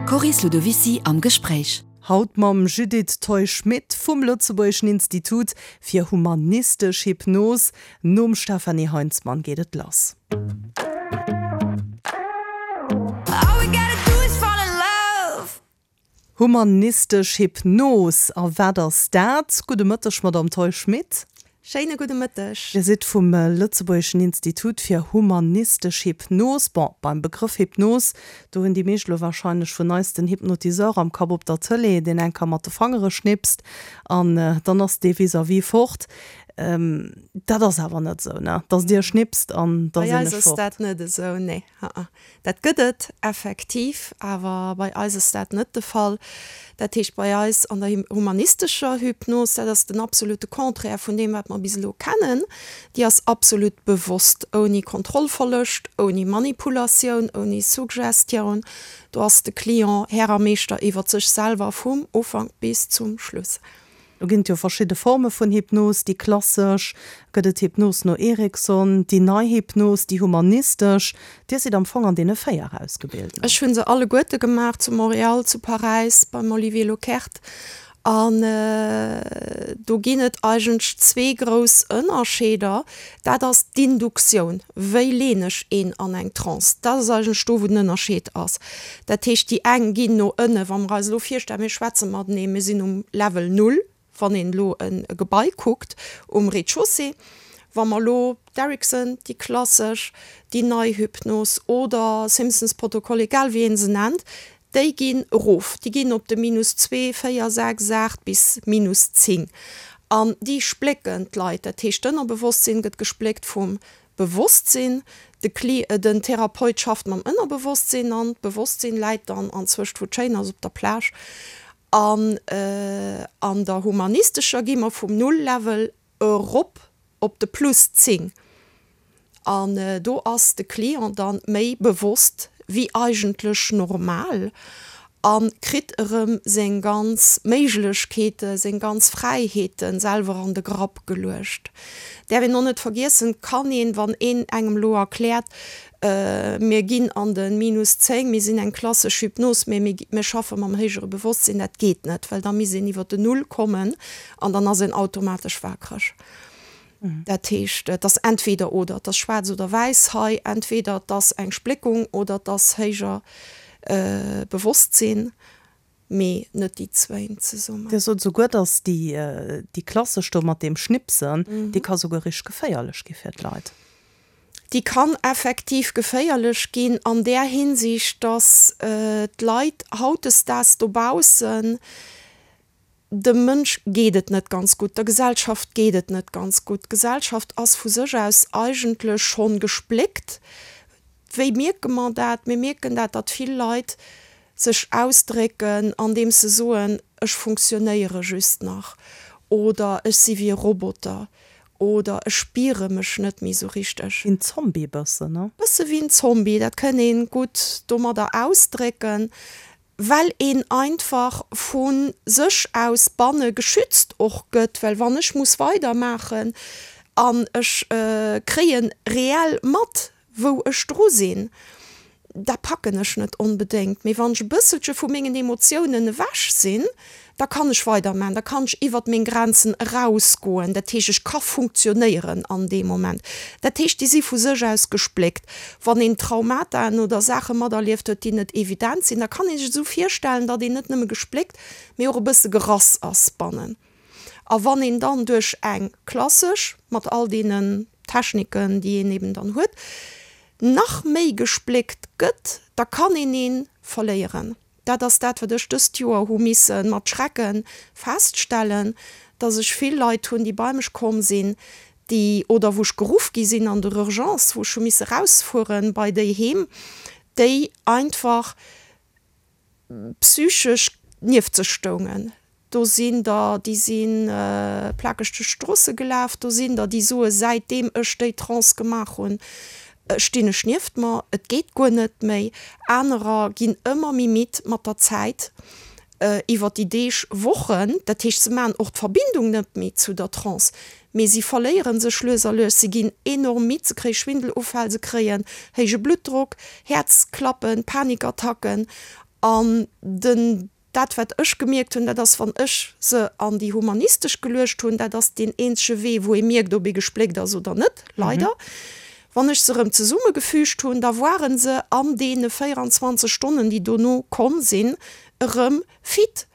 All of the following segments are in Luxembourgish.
D'Coris Ludovicy am Gespréich. Haut mam Judith Theu-Schmit vum Lëtzebuergeschen Institut fir humanistesch Hypnos. Nom Stefanie Heinzmann geet et lass. Humanistesch Hypnos, a wat ass dat? Gudde Mëtteg, Madamm Theu-Schmit. Schéine gudde Mëtteg. Dir sidd vum Lëtzebuergeschen Institut fir humanistesch Hypnos. Bon, beim Begrëff Hypnos, do hunn déi meescht elo warscheinlech vun eis den Hypnotiseur am Kapp op der Tëlee, deen eng Kéier mat de Fangere schnipst an dann ass dee vis-à-vis fort. Dat ass awer net esou, ne? Dass Dir schnipst an da Bei sinn eis ech ass fort. dat net esou, nee. Aa. Dat gëtt et effektiv, awer bei eis ass dat net de Fall. Dat heescht, bei eis an der humanistescher Hypnos, dat ass den absolute Contraire vun deem, wat mer bis elo kennen, déi ass absolut bewosst, ouni Kontrollverloscht, ouni Manipulatioun, ouni Suggestioun. Do ass de Client Här a Meeschter iwwert sech selwer vum Ufank bis zum Schluss. Do ginn et jo verschidde Forme vun Hypnos, déi klassesch, gëtt et Hypnos no Erickson, déi nei Hypnos, déi humanistesch. Dir sidd am Fong an deene 4 ausgebilt, ne? Ech hu se alleguerte gemaach, zu Montréal, zu Paräis, beim Olivier Lockert. An do ginn et eigentlech zwee grouss Ënnerscheeder. Dat ass d'Induktioun, wéi leen ech een an eng Trance? Dat ass eigentlech do, wou den Ënnerscheed ass. Dat heescht, déi eng ginn no ënne, wa mer eis elo virstellen, mir schwätze matenee, mir sinn um Level null, wann een elo e Gebai kuckt um Rez-de-chaussée. Wa mer elo d'Erickson, déi klassesch, déi nei Hypnos oder Simpsons Protokoll, egal wéi ee se nennt, Déi ginn erof, déi ginn op de minus zwee, véier, sechs, aacht bis minus 10. An déi splécken d'Leit. Dat heescht, d'Ënnerbewosstsinn gëtt gespléckt vum Bewosstsinn. De Kli, den Therapeut schafft mam Ënnerbewosstsinn an d'Bewosstsinn läit dann anzwëscht, wou et schéin ass, op der Plage. An an der humanistescher gi mer vum Null-Level erop op de plus 10 an do ass de Client dann méi bewosst wéi eigentlech normal a kritt erëm seng ganz Méiglechkeete, seng ganz Fräiheete selwer an de Grapp geluecht. Däerf een och net vergiessen, kann een, wann een engem elo erkläert, mir ginn an de minus 10, mir sinn eng klassesch Hypnos, mä mir schaffe mam héijere Bewosstsinn, dat geet net, well da misst een iwwer den Null kommen an dann ass een automatesch waakreg. Dat heescht, et ass entweder oder, et ass schwaarz oder wäiss hei, entweder et ass eng Spléckung oder et ass héijer Bewosstsinn, mee net déi zwéin zesummen. Dir sot esouguer, datt déi, déi klassesch do mat deem Schnipsen, déi ka souguer richteg geféierlech gi fir d'Leit. Déi kann effektiv geféierlech ginn an där Hinsicht, datt d'Leit hautdesdaags dobaussen, Dem Mënsch geet et net ganz gutt, der Gesellschaft geet et net ganz gutt. D'Gesellschaft ass vu sech aus eigentlech schonn gespléckt. Wéi mierke mer dat? Mir mierken dat, datt vill Leit sech ausdrécken, andeems se soen, ech funktionéiere just nach oder ech si wéi e Roboter oder ech spiere mech net méi sou richteg. Wéi en Zombie bëssen, ne? Bësse wéi en Zombie, dat kënn ee gutt domadder ausdrécken. well een einfach vu sech aus banne geschützt och gëtt, well wann ech muss weidermaachen an ech kréie reell mat, wou ech dru sinn, da packen ech net onbedéngt. Mee wann ech e bësselche vu mengen Emotiounen ewech sinn, da kann ech weidermaachen, da kann ech iwwert meng Grenzen erausgoen. Dat heescht, ech ka funktionéieren an deem Moment. Dat heescht, déi si vu sech aus gespléckt. Wann een Traumataen oder Saache materlieft huet, déi net evident sinn, da kann ee sech esou virstellen, datt een net nëmme gespléckt, mee och e bësse gerass ass bannen. A wann een dann duerch eng klassesch, mat all deenen Techniken, déi een eben dann huet, nach méi gespléckt gëtt, da kann een ee verléieren. Dat ass dat, wat ech dëst Joer hu misse mat Schrecke feststellen, dass ech vill Leit hunn, déi bei mech komm sinn, déi, oder wou ech geruff gi sinn an der Urgence, wou ech hu misse rausfuere bei déi heem, déi einfach psychesch nieft sech stoungen. Do sinn der, déi si plakeg duerch d'Stroosse gelaf. Do sinn der, déi soe säitdeem ech déi Trance gemaach hunn, stinn ech nieft mer, et geet guer net méi. Anerer ginn ëmmer méi midd mat der Zäit, iwwer déi Deeg, Wochen. Dat heescht, se maachen och d'Verbindung net méi zu der Trance, mee si verléiere sech lues a lues. Si ginn enorm midd, se kréie Schwindelufäll, se kréien héije Bluttdrock, Häerzklappen, Panikattacken. An den, dat wat ech gemierkt hunn, dat ass, wann ech se an déi humanistesch geluecht hunn, dat ass deen eenzege Wee, wou ee mierkt, ob ee gespléckt ass oder net, leider. Wann ech se erëm zesummegefügt hunn, da woare se an deene 24 Stonnen, déi dono komm sinn, erëm fit.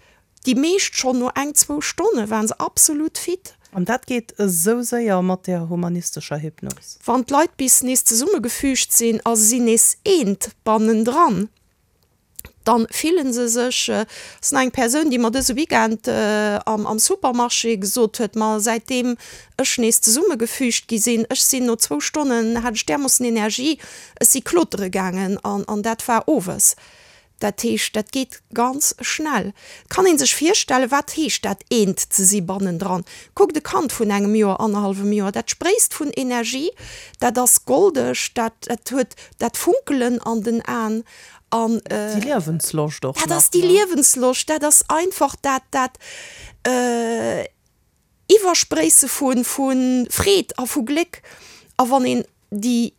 Déi meescht schonn no eng, zwou Stonne waren se absolut fit. An dat geet esou séier mat där humanistescher Hypnos? Wann d'Leit bis nees zesummegefügt sinn a se sinn nees eent bannendran, dann fillen se sech, ass nach eng Persoun, déi mer dëse Weekend am Supermarché gesot huet, ma säitdeem ech nees zesummegefügt gi sinn, ech sinn no zwou Stonnen, hat ech därmoossen Energie, ech si klotere gaangen an dat war owes. Dat heescht, dat geet ganz schnell. Et kann ee sech virstellen, wat heescht dat eent ze si bannendran. Kuckt e Kand vun engem Joer, annerhallwem Joer, dat spréisst vun Energie, dat ass goldeg, dat huet dat Funkelen an den Aen an. Déi Liewensloscht och nach. Dat ass déi Liewensloscht, dat ass einfach dat, dat Iwwerspréisse vu Freed a vu Gléck. A wann een déi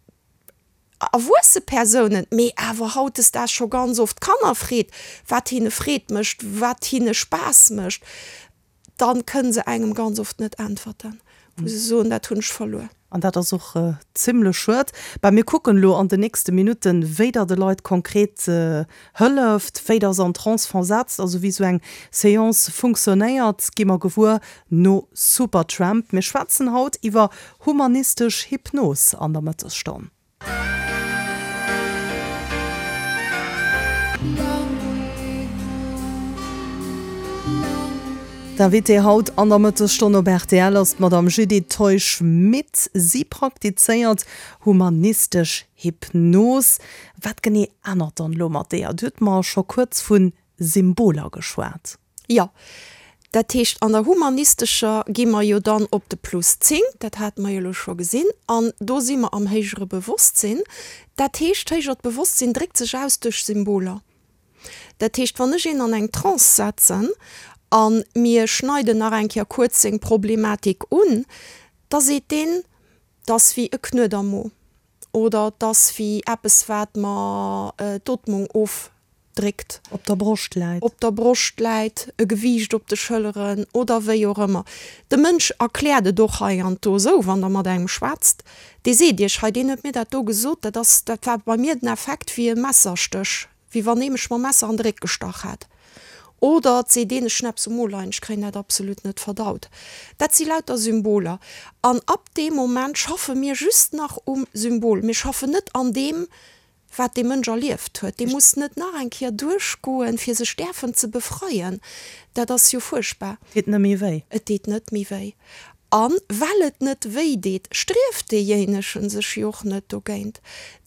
erwuesse Persounen, mee awer hautdesdaags scho ganz oft Kanner freet, wat hinne Freed mécht, wat hinne Spaass mécht, dann kënne se engem ganz oft net äntwerten, wou se soen, dat hunn ech verluer. An dat ass och zimlech schued. Bah, mir kucken elo an den nächste Minutten, wéi Der de Leit konkret hëlleft, wéi Der se an Trance versetzt, also wéi esou eng Seance funktionéiert, gi mer gewuer no Supertramp. Mir schwätzen haut iwwer humanistesch Hypnos an der Mëttesstonn. D'Invitée haut an der Mëttesstonn op rtl ass d'Madame Judith Teusch-Schmit. Si praktizéiert humanistesch Hypnos. Wat genee ännert dann elo mat deeër? Dir hutt mer scho kuerz vu Symboler geschwat. Jo, dat heescht an der humanistescher gi mer jo dann op de Plus 10, dat hate mer jo elo scho gesinn, an do si mer am héijere Bewosstsinn. Dat heescht, d'héijert Bewosstsinn dréckt sech aus duerch Symboler. Dat heescht, wann ech een an eng Trance setzen a mir schneiden nach eng Kéier kuerz seng Problematik un, da seet deen, 't ass wéi e Knuet am Mo oder 't ass wéi eppes wat mer d'Ootmung of dréckt. Op der Broscht läit. Op der Broscht läit, e Gewiicht op de Schëlleren oder wéi och ëmmer. De Mënsch erkläert et och hei an do esou, wann Der mat engem schwätzt, dee seet Iech, hei deen huet mir dat do gesot, dat ass, dat war bei mir den Effekt wéi e Messerstéch, wéi wann ee mech mam Messer an de Réck gestach hätt. Oder et seet een, ech hunn eppes um Mo leien, ech kréien dat absolut net verdaut. Dat si lauter Symboler. An ab deem Moment schaffe mir just nach um Symbol. Mir schaffen net an deem, wat dee Mënsch erlieft huet, dee muss net nach eng Kéier duerchgoen, fir sech däerfen ze befreien. Dat ass jo fuerchtbar. Et deet net méi wéi. Et deet net méi wéi. A well et net wéi deet, strieft deejéinegen sech jo och net dogéint.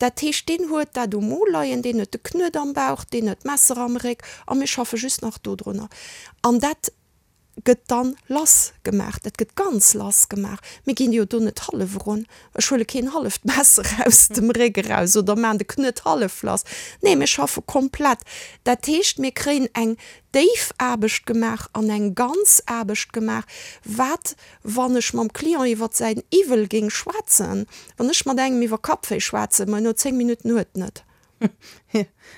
Dat heescht, deen huet dat um Mo leien, deen huet de Knuet am Bauch, deen huet d'Messer am Réck a mir schaffe just nach dodrunner. An dat gëtt dann lass gemaach, dat gëtt ganz lass gemaach. Mir ginn jo do net hallef erun. Ech huele keen halleft Messer aus dem Réck eraus oder maan de Knuet hallef lass. Nee, mir schaffe komplett. Dat heescht, mir kréien eng déif Aarbecht gemaach an eng ganz Aarbecht gemaach, wat, wann ech mam Client iwwert säin Iwwel géing schwätzen, wann ech mat engem iwwer Kappwéi schwätzen, ma no 10 Minutten huet en et.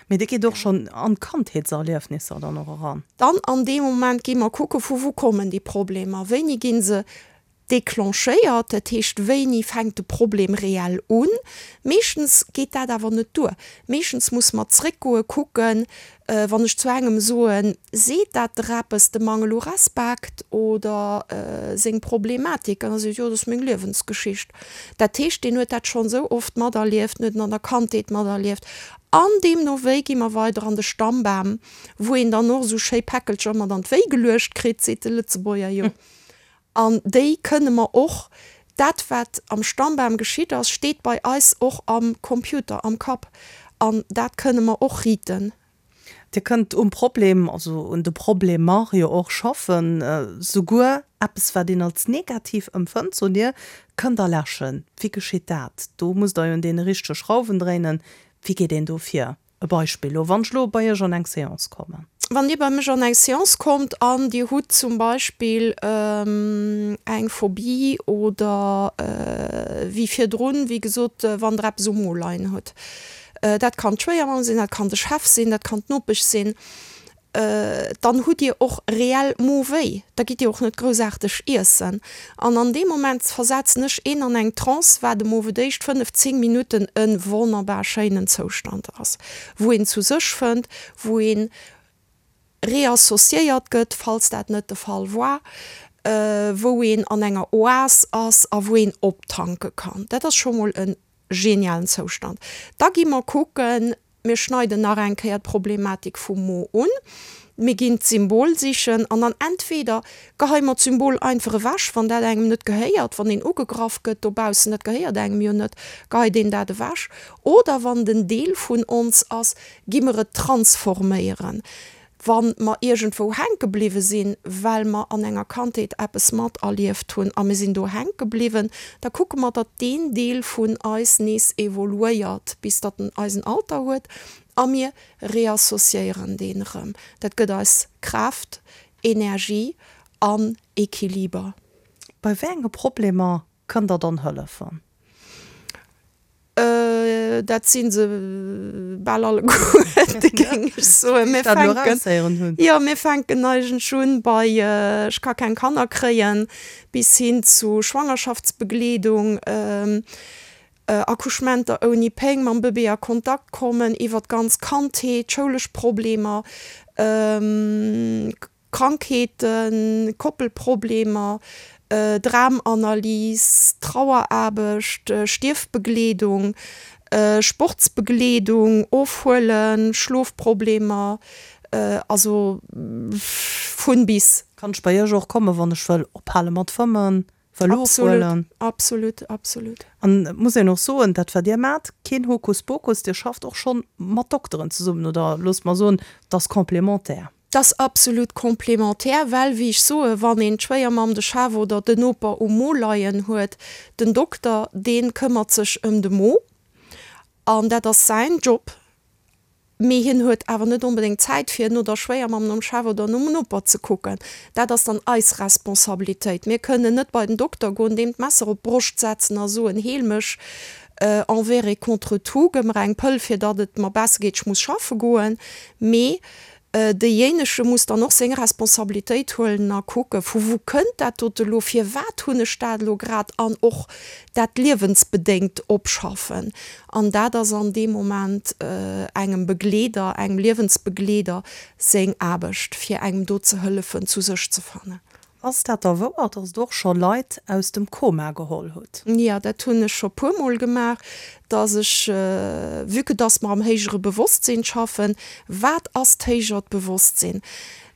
Mee dir gitt och schonn an d'Kandheetserliefnisser dann och eran? Dann an deem Moment gi mer kucke vu wou kommen déi Problemer, wéini gi se declenchéiert, dat heescht wéini fänkt de Problem reell un. Meeschtens geet dat awer net duer. Meeschtens muss mer zréckgoe kucken, wann ech zu engem soen, seet dat der eppes, de Mangel u Respekt oder seng Problematik, an da seet, jo dat ass meng Liewensgeschicht. Dat heescht, deen huet dat schonn esou oft materlieft, en huet en an der Kandheet materlieft. An deemno wéi gi mer weider an de Stammbam, wou een dann och esou schéi Päckelcher mat an d'Wéi geluecht kritt, seet de Lëtzebuerger jo. An déi kënne mer och, dat wat am Stammbam geschitt ass, steet bei eis och am Computer, am Kapp. An dat kënne mer och riten. Dir kënnt um Problem, also un de Problemer jo och schaffen, souguer eppes wat een als negativ empfënnt, sot Dir, kënnt Der läschen. Wéi geschitt dat? Do musst Der jo un deene richtege Schrauwen dréinen. Wéi geet een do vir? E Beispill elo, wann ech elo bei Iech an eng Seance kommen. Wann Dir bei mech an eng Seance kommt an Dir hutt zum Beispill eng Phobie oder wéi virdrun, wéi gesot, wann Der eppes um Mo leien hutt. Dat kann d'Schwéiermamm sinn, dat kann de Chef sinn, dat kann d'Nopesch sinn. Dann hutt Dir och reell Mowéi, da gitt Dir och net groussaarteg iessen. An an deem Moment versetzen ech een an eng Trance, wat em owe d'éischt 5, 10 Minutten e wonnerbar schéinen Zoustand ass, wou een zu sech fënnt, wou een reassociéiert gëtt, falls dat net de Fall war, wou een an enger Oas ass a wou een optanke kann. Dat ass scho mol e genialen Zoustand. Da gi mer kucken, mir schneiden nach eng Kéier d'Problematik vum Mo un, mir ginn d'Symbol sichen an dann entweder geheie mer d'Symbol einfach ewech, wann dat engem net gehéiert, wann een ugegraff gëtt dobaussen, dat gehéiert engem jo net, geheit een dat ewech, oder wann et en Deel vun ons ass, gi mer et transforméieren, wa mer iergendwou hänke bliwwe sinn, well mer an enger Kandheet eppes materlieft hunn a mir sinn do hänke bliwwen, da kucke mer, datt deen Deel vun eis nees evoluéiert, bis datt en eisen Alter huet a mir reassociéieren deen erëm. Dat gëtt eis Kraaft, Energie an Equiliber. Bei wéi enge Problemer kënnt Der dann hëllefen? Dat si se bal alleguerte, géing ech soen. Mir fänken, jo, mir fänken eigentlech un bei Ech ka keng Kanner kréien bis hin zu Schwangerschaftsbegleedung, Accouchementer ouni Péng, mam Bëbee a Kontakt kommen, iwwer d'ganz Kandheet, schoulesch Problemer, Krankheeten, Koppelproblemer, Dramanalys, Traueraarbecht, Stierfbegleedung, Sportsbegleedung, Ofhuelen, Schlofproblemer, also vun bis. Kann ech bei iech och kommen, wann ech wëll ophale mat fëmmen, wëll ofhuelen? Absolut, absolut. An et muss een och soen, dat wat dir maacht, keen Hokuspokus, dir schafft och schonn mat Dokteren zesummen, oder loosst mer soen, et ass complémentaire. 't ass absolut complémentaire, well, wéi ech soen, wann een d'Schwéiermamm, de Chef oder den Noper um Mo leien huet, den Dokter, dee këmmert sech ëm de Mo an dat ass säin Job, mee hien huet awer net onbedéngt Zäit, fir no der Schwéiermamm, nom Chef oder nom Noper ze kucken. Dat ass dann eis Responsabilitéit. Mir kënnen net bei den Dokter goen, deem d'Messer op d'Broscht setzen a soen, Heel mech envers et contre tout, gëmm mer eng Pëll, fir datt et mer besser geet, ech muss schaffe goen. Mee Deejéinege muss dann och seng Responsabilitéit huelen a kucken, vu wou kënnt dat dote elo, firwat hunn ech dat elo grad an och dat liewensbedéngt opschaffen. An dat ass an deem Moment engem Begleeder, engem Liewensbegleeder seng Aarbecht, fir engem do ze hëllefen, zu sech ze fannen. Ass dat da wouer, dass Der och scho Leit aus dem Koma geholl hutt? Jo, dat hunn ech scho puermol gemaach, dass ech, vue que dass mer am héijere Bewosstsinn schaffen, wat ass d'héijert Bewosstsinn?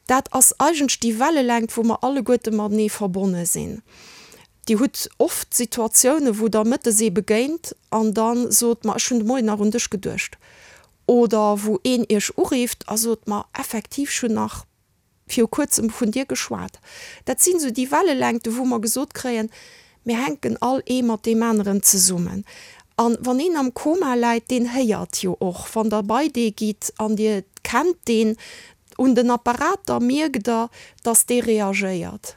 Dat ass eigentlech déi Wellelängt, wou mer alleguerte matenee verbonne sinn. Dir hutt oft Situatiounen, wou Der mëttes ee begéint an da sot, Ma ech hunn de Moien nach un dech geduecht. Oder wou een Iech urifft a sot, Ma effektiv, ech hunn nach viru kuerzem vun dir geschwat. Dat sinn esou déi Wellelängten, wou mer gesot kréien, mir hänken all ee mat deem aneren zesummen. A wann een am Koma läit, deen héiert jo och, wann Der bei dee gitt an Dir kennt deen, un den Apparater mierkt Der, dass dee reagéiert.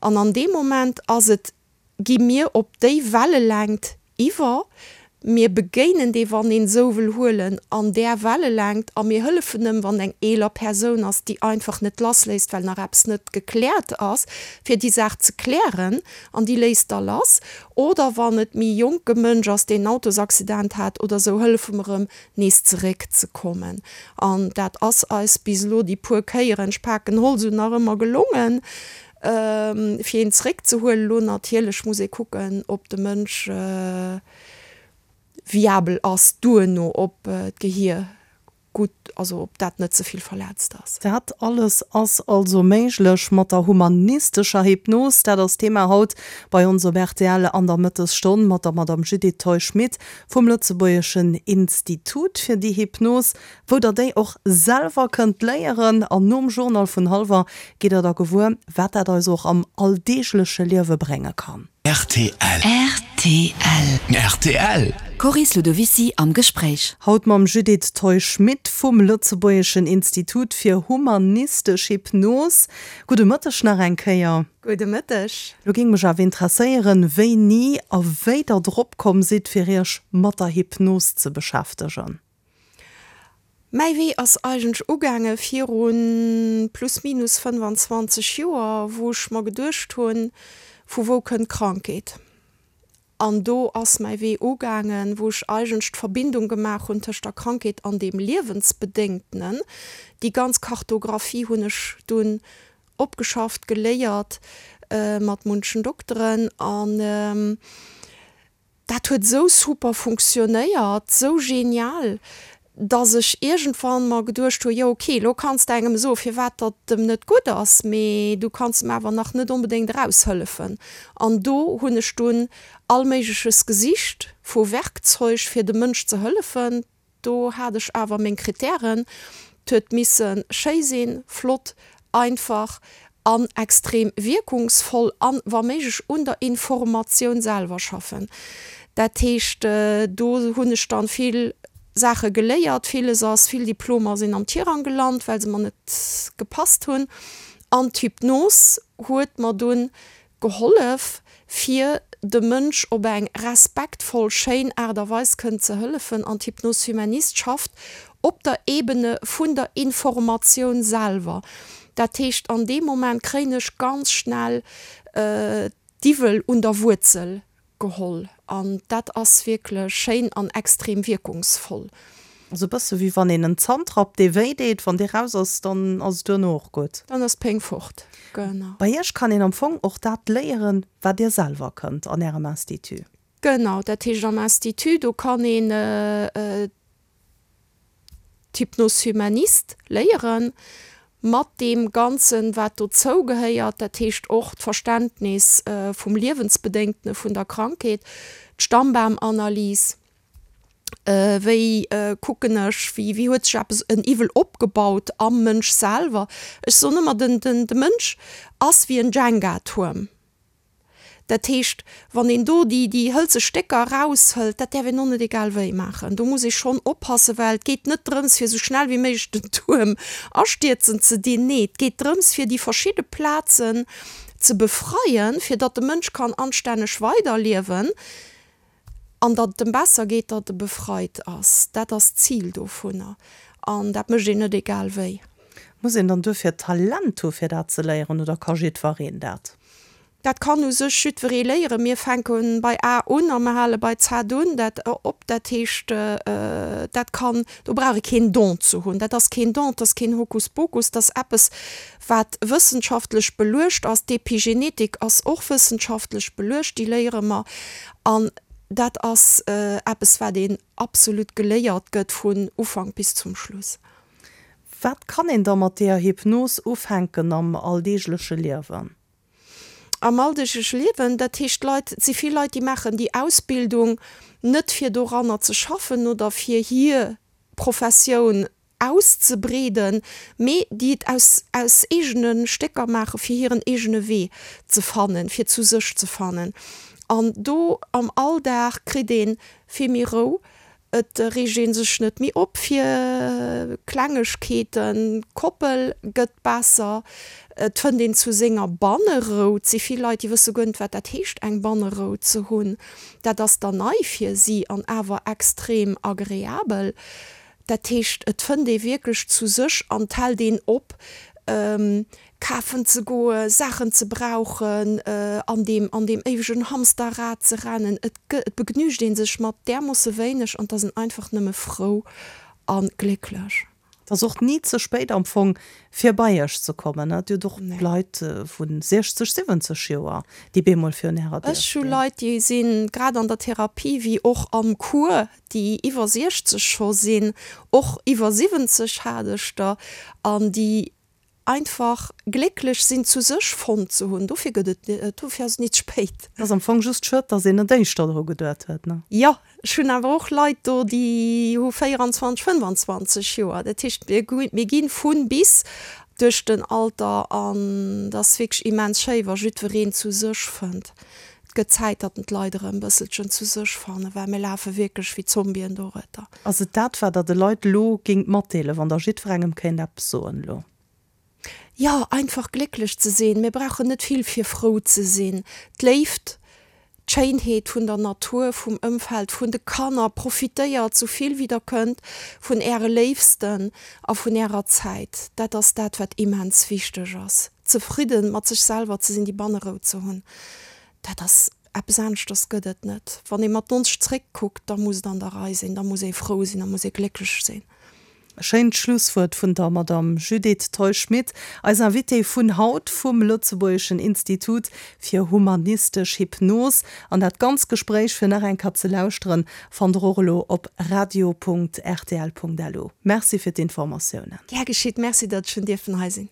An an deem Moment ass et gi mir op déi Wellelängt iwwer, mir begéinen dee, wann een esou wëll huelen, an där Wellelängt a mir hëllefen em, wann eng eeler Persoun ass, déi einfach net lassléisst, well nach eppes net gekläert ass, fir déi Saach ze klären an déi léisst da lass. Oder wann et méi jonke Mënsch ass, deen en Autosaccident hat oder esou, hëllefe mer em, nees zeréckzekommen. An dat ass eis bis elo déi puer Kéieren, ech paken Holz un, nach ëmmer gelongen. Fir een zeréckzehuelen, elo natierlech muss ee kucken, ob de Mënsch viabel ass duerno, ob d'Gehier gutt, also ob dat net ze vill verletzt ass. Dat alles ass also méiglech mat der humanistescher Hypnos. Dat ass d'Thema haut bei ons op rtl an der Mëttesstonn mat der Madame Judith Theusch-Schmit vum Lëtzebuergeschen Institut fir déi Hypnos. Wou der déi och selwer kënnt léieren. An nom Journal vun hallwer gitt der da gewuer, wat dat eis och am alldeegleche Liewe brénge kann. Rtl. Rtl. Rtl. D'Coris Ludovicy am Gespréich. Haut mam Judith Theu-Schmit vum Lëtzebuergeschen Institut fir humanistesch Hypnos. Gudde Mëtteg nach eng Kéier. Gudde Mëtteg. Lo géing mech awer interesséieren, wéini a wéi der drop komm sidd, fir iech mat der Hypnos ze beschäftegen. Mäi Wee ass eigentlech ugaange viru plus minus 25 Joer, wou ech mer geduecht hunn, vu wou kënnt d'Krankheet? An do ass mäi Wee ugaangen, wou ech eigentlech d'Verbindung gemaach hunn tëscht der Krankheet an deem Liewensbedéngtenen. Déi ganz Kartographie hunn ech dunn opgeschafft, geléiert mat munchen Dokteren an Dat huet esou super funktionéiert, esou genial, dass ech iergendwann mer geduecht hu, jo ok, elo kanns de engem soen, firwat datt em net gutt ass, mee du kanns em awer nach net onbedéngt eraushëllefen. An do hunn ech dunn all Méigleches gesicht vu Werkzeug, fir dem Mënsch ze hëllefen. Do hat ech awer meng Kritären, 't huet misse schéi sinn, flott, einfach an extrem wierkungsvoll an wa méiglech un der Informatioun selwer schaffen. Dat heescht, do hunn ech dann vill Saache geléiert, villes ass, vill Diplomer sinn am Tirang gelant, well se mer net gepasst hunn. An d'Hypnos huet mer dunn Gehollef, fir dem Mënsch op eng respektvoll, schéin Aart a Weis kënnen ze hëllefen. An d'Hypnose humaniste schafft op der Ebene vun der Informatioun selwer. Dat heescht, an deem Moment kréien ech ganz schnell d'Iwwel un der Wuerzel Geholl an dat ass wierklech schéin an extrem wierkungsvoll. Ass e bësse wéi wann een en Zant rappt dee wéi deet, wann dee raus ass, dann ass et duerno och gutt. Dann ass d'Péng fort, genau. Bei iech kann een am Fong och dat léieren, wat dir selwer kënnt an ärem Institut. Genau, dat heescht am Institut, do kann een d'Hypnose humaniste léieren, mat deem Ganzen, wat dozou gehéiert, dat heescht och d'Verständnis vum Liewensbedéngtene vun der Krankheet, d'Stammbaumanalys, wéi kucken ech, wéi wéi huet sech eppes, en Iwwel opgebaut am Mënsch selwer. Ech soen ëmmer, den den de Mënsch ass wéi en Jenga-Tuerm. Dat heescht, wann een do déi, déi hëlze Stécker eraushëlt, dat däerf een och net egal wéi maachen. Do muss ee schonn oppassen, well et geet net drëms, fir esou schnell wéi méiglech den Tuerm astierzen ze dinn. Nee, et geet drëms, fir déi verschidde Plazen ze befreien, fir datt de Mënsch kann anstänneg weiderliewen an datt et em besser geet, datt e befreit ass. Dat ass d'Zil dovunner an dat mécht een net egal wéi. Muss een dann duerfir Talent hu fir dat ze léieren oder ka jiddwereen dat? Dat kann u sech jiddweree léieren. Mir fänke bei A un a mer hale bei Z un dat op. Dat heescht, dat kann, do brauch ee keen Don ze hunn. Dat ass keen Don, dat ass keen Hokuspokus, dat ass eppes, wat wëssenschaftlech beluecht ass. D'Epigenetik ass och wëssenschaftlech beluecht, déi léiere mer. An dat ass eppes, wat een absolut geléiert gëtt vun Ufank bis zum Schluss. Wat kann een da mat deeër Hypnos ufänken am alldeegleche Liewen? Am alldeegleche Liewen, dat heescht d'Leit, et si vill Leit, déi maachen déi Ausbildung net fir doranner ze schaffen oder fir hir Professioun auszebreeden, mee déi et aus aus eegene Stécker maache fir hiren eegene Wee ze fannen, fir zu sech ze fannen. An do am Alldag kritt ee vill méi Rou, Et reegt ee sech net méi op fir Klengegkeeten, d'Koppel gëtt besser, et fënnt een zu senger Bannerou. Et si vill Leit, déi wësse guer net, wat dat heescht, eng Bannerou ze hunn. Dat ass dann nei fir si an awer extrem agreabel. Dat heescht, et fënnt ee wierklech zu sech an et hält een op, kafen ze goen, Saachen ze brauchen, an deem, an deem éiwegen Hamsterrad ze rennen. Et gë, et begnügt ee sech mat därmoosse wéineg an 't ass een einfach nëmme frou a glécklech. Et ass och ni ze spéit am Fong fir bei iech ze kommen, ne? Dir hutt och Leit vu 60, 70 Joer, déi bemol virun ärer Dier Ech hu stinn. Leit, déi si grad an der Therapie wéi och am Cours, déi iwwer 60 scho sinn, och iwwer 70 hat ech der, an déi Einfach glécklech sinn zu sech fonnt ze hunn, dofir gëtt et, dofir ass et nit spéit. Ass am Fong just schued, dass een net éischter dru geduet huet, ne? Jo, ech hunn awer och Leit do, déi hu 24, 25 Joer. Dat heescht, mir gi vu bis duerch den Alter an et ass wierklech immens schéi, wa jiddwereen zu sech fënnt. Et gëtt Zäit, datt d'Leit erëm e bësselchen zu sech fannen, well mir lafe wierklech wéi Zombien dorueter. Ass et dat, wat Der de Leit elo géingt matdeelen, wann Der jiddwerengem kéint eppes soen elo? Jo, einfach glécklech ze sinn. Mir brauchen net vill, fir frou ze sinn. D'Léift, d'Schéinheet vun der Natur, vum Ëmfeld, vun de Kanner. Profitéiert sou vill wéi der kënnt vun äre Léifsten a vun ärer Zäit. Dat ass dat, wat immens wichteg ass. Zefridden mat sech selwer ze sinn, déi Bannerou ze hunn, dat ass eppes aneschters gëtt et net. Wann ee mat 90 zréckkuckt, da muss et an der Rei sinn, da muss ee frou sinn, da muss ee glécklech sinn. E schéint Schlusswuert vun der Madame Judith Theusch-Schmit, eis Invitée vun haut vum Lëtzebuergeschen Institut fir humanistesch Hypnos. An dat ganz Gespréich fir nach eng Kéier ze lauschteren, fannt der och elo op radio.rtl.lu. Merci fir d'Informatiounen. Gär geschitt. Merci, datt ech hunn dierfen hei sinn.